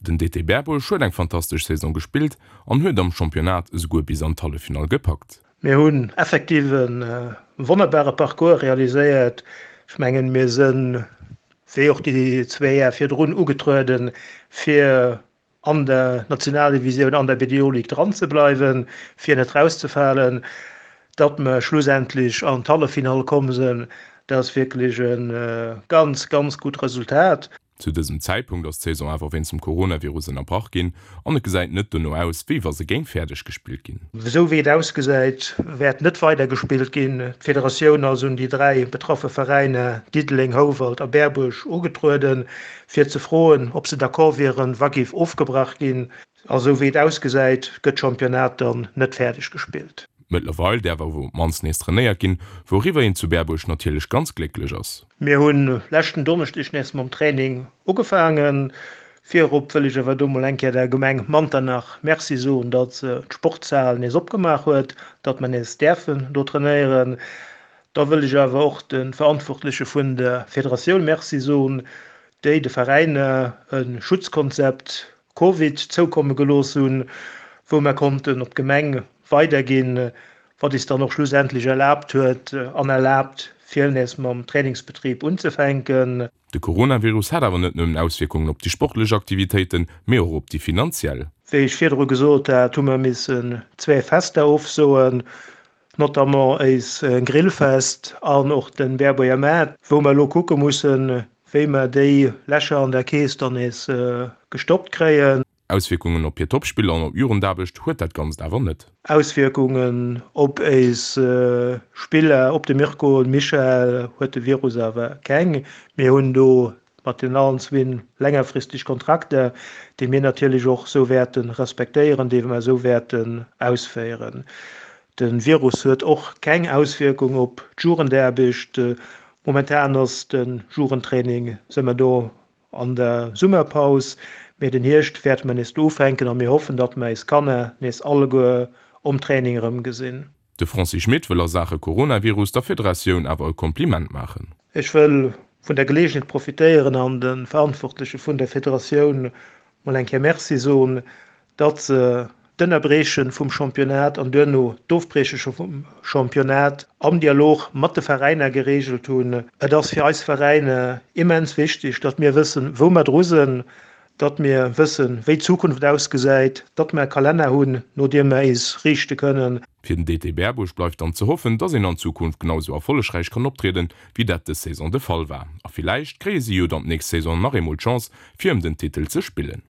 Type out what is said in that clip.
Den DT Berbuerg huet eng fantastesch Saison gespillt an huet am Championnat esouguer bis an d'Halleffinall gepackt. Mir hunn effektiv e wonnerbare Parcours realiséiert. Ech mengen, mir sinn, wéi och déi zwee Jar virdrun, ugetrueden, fir an der Nationaldivisioun, an der BDO Ligue dran ze bleiwen, fir net rauszefalen. Datt mer schlussendlech an d'Halleffinall komm sinn, dat ass wierklech e ganz, ganz gutt Resultat. Zu dësem Zäitpunkt ass d'Saison awer wéinst dem Coronavirus ënnerbrach ginn an et gesäit net dono aus, wéi wa se géing fäerdeg gespillt ginn. Esou wéi et ausgesäit, wäert net weider gespillt ginn. D'Federatioun ass un déi 3 betraffe Veräiner, Diddeleng, Houwald a Berbuerg, ugetrueden, fir ze froen, ob se d'accord wieren, wa géif ofgebrach ginn. A sou wéi et ausgesäit, gëtt d'Championnat dann net fäerdeg gespillt. Mëttlerweil däerf awer op d'mannst nees trainéiert ginn, wouriwwer een zu Berbuerg natierlech ganz glécklech ass. Mir hunn leschten Donneschdeg nees mam Training ugefaangen. Virop wëll ech awer do mol eng Kéier der Gemeng Manternach Merci soen, datt se d'Sportshal nees opgemaach huet, datt mer nees däerfen do trainéieren. Da wëll ech awer och de Verantwortleche vun der Federatioun Merci soen, déi de Veräiner e Schutzkonzept Covid zoukomme gelooss hunn, wou mer konnten op d'Gemeng weiderginn, wat is dann och schlussendlech erlaabt huet an erlaabt, fir nees mam Trainingsbetrib unzefänken. De Coronavirus hat awer net nëmmen Auswierkungen op déi sportlech Aktivitéiten, mee och op déi finanziell. Wéi ech virdru gesot hat, hu mer missen zwee Fester ofsoen, notamment éis Grillfest an och de Berbuerger Maart, wou mer elo kucke mussen, wéi mer déi Lächer an der Keess dann nees gestoppt kréien. Auswierkungen op hir Topspiller an op d'Jugendaarbecht huet dat Ganzt awer net. Auswierkungen op éis Spiller, op de Mirko an Michael huet de Virus awer keng. Mir hunn do mat den allen zwinn längerfristeg Kontrakter, déi mir natierlech och esou wäerte respektéieren, déi mer esou wäerten ausféieren. De Virus huet och keng Auswierkung op d'Jugendaarbecht. Momentan ass de Jugendtraining, si mer do an der Summerpaus, mee den Hierscht wäerte mer nees do ufänken a mir hoffen, datt mer eis Kanner nees alleguer um Training erëmgesinn. De Francis Schmit wëll a Saache Coronavirus der Federatioun awer e Kompliment maachen. Ech wëll vun der Geleegenheet profitéieren an de Verantwortleche vun der Federatioun mol eng Kéier Merci soen, datt se d'Ënnerbrieche vum Championnat an duerno d'Ofbrieche vum Championnat am Dialog mat de Veräiner gereegelt hunn. Et ass fir eis Veräiner immens wichteg, datt mir wëssen, wou mer dru sinn, datt mir wëssen, wéi d'Zukunft ausgesäit, datt mer e Kalenner hunn, no deem mer eis riichte kënnen. Fir den DT Berbuerg bleift dann ze hoffen, dass een an Zukunft genau sou erfollegräich kann optrieden, wéi dat dës Saison de Fall war. A villäicht kréie si jo dann d'nächst Saison nach eemol d'Chance, fir ëm den Titel ze spillen.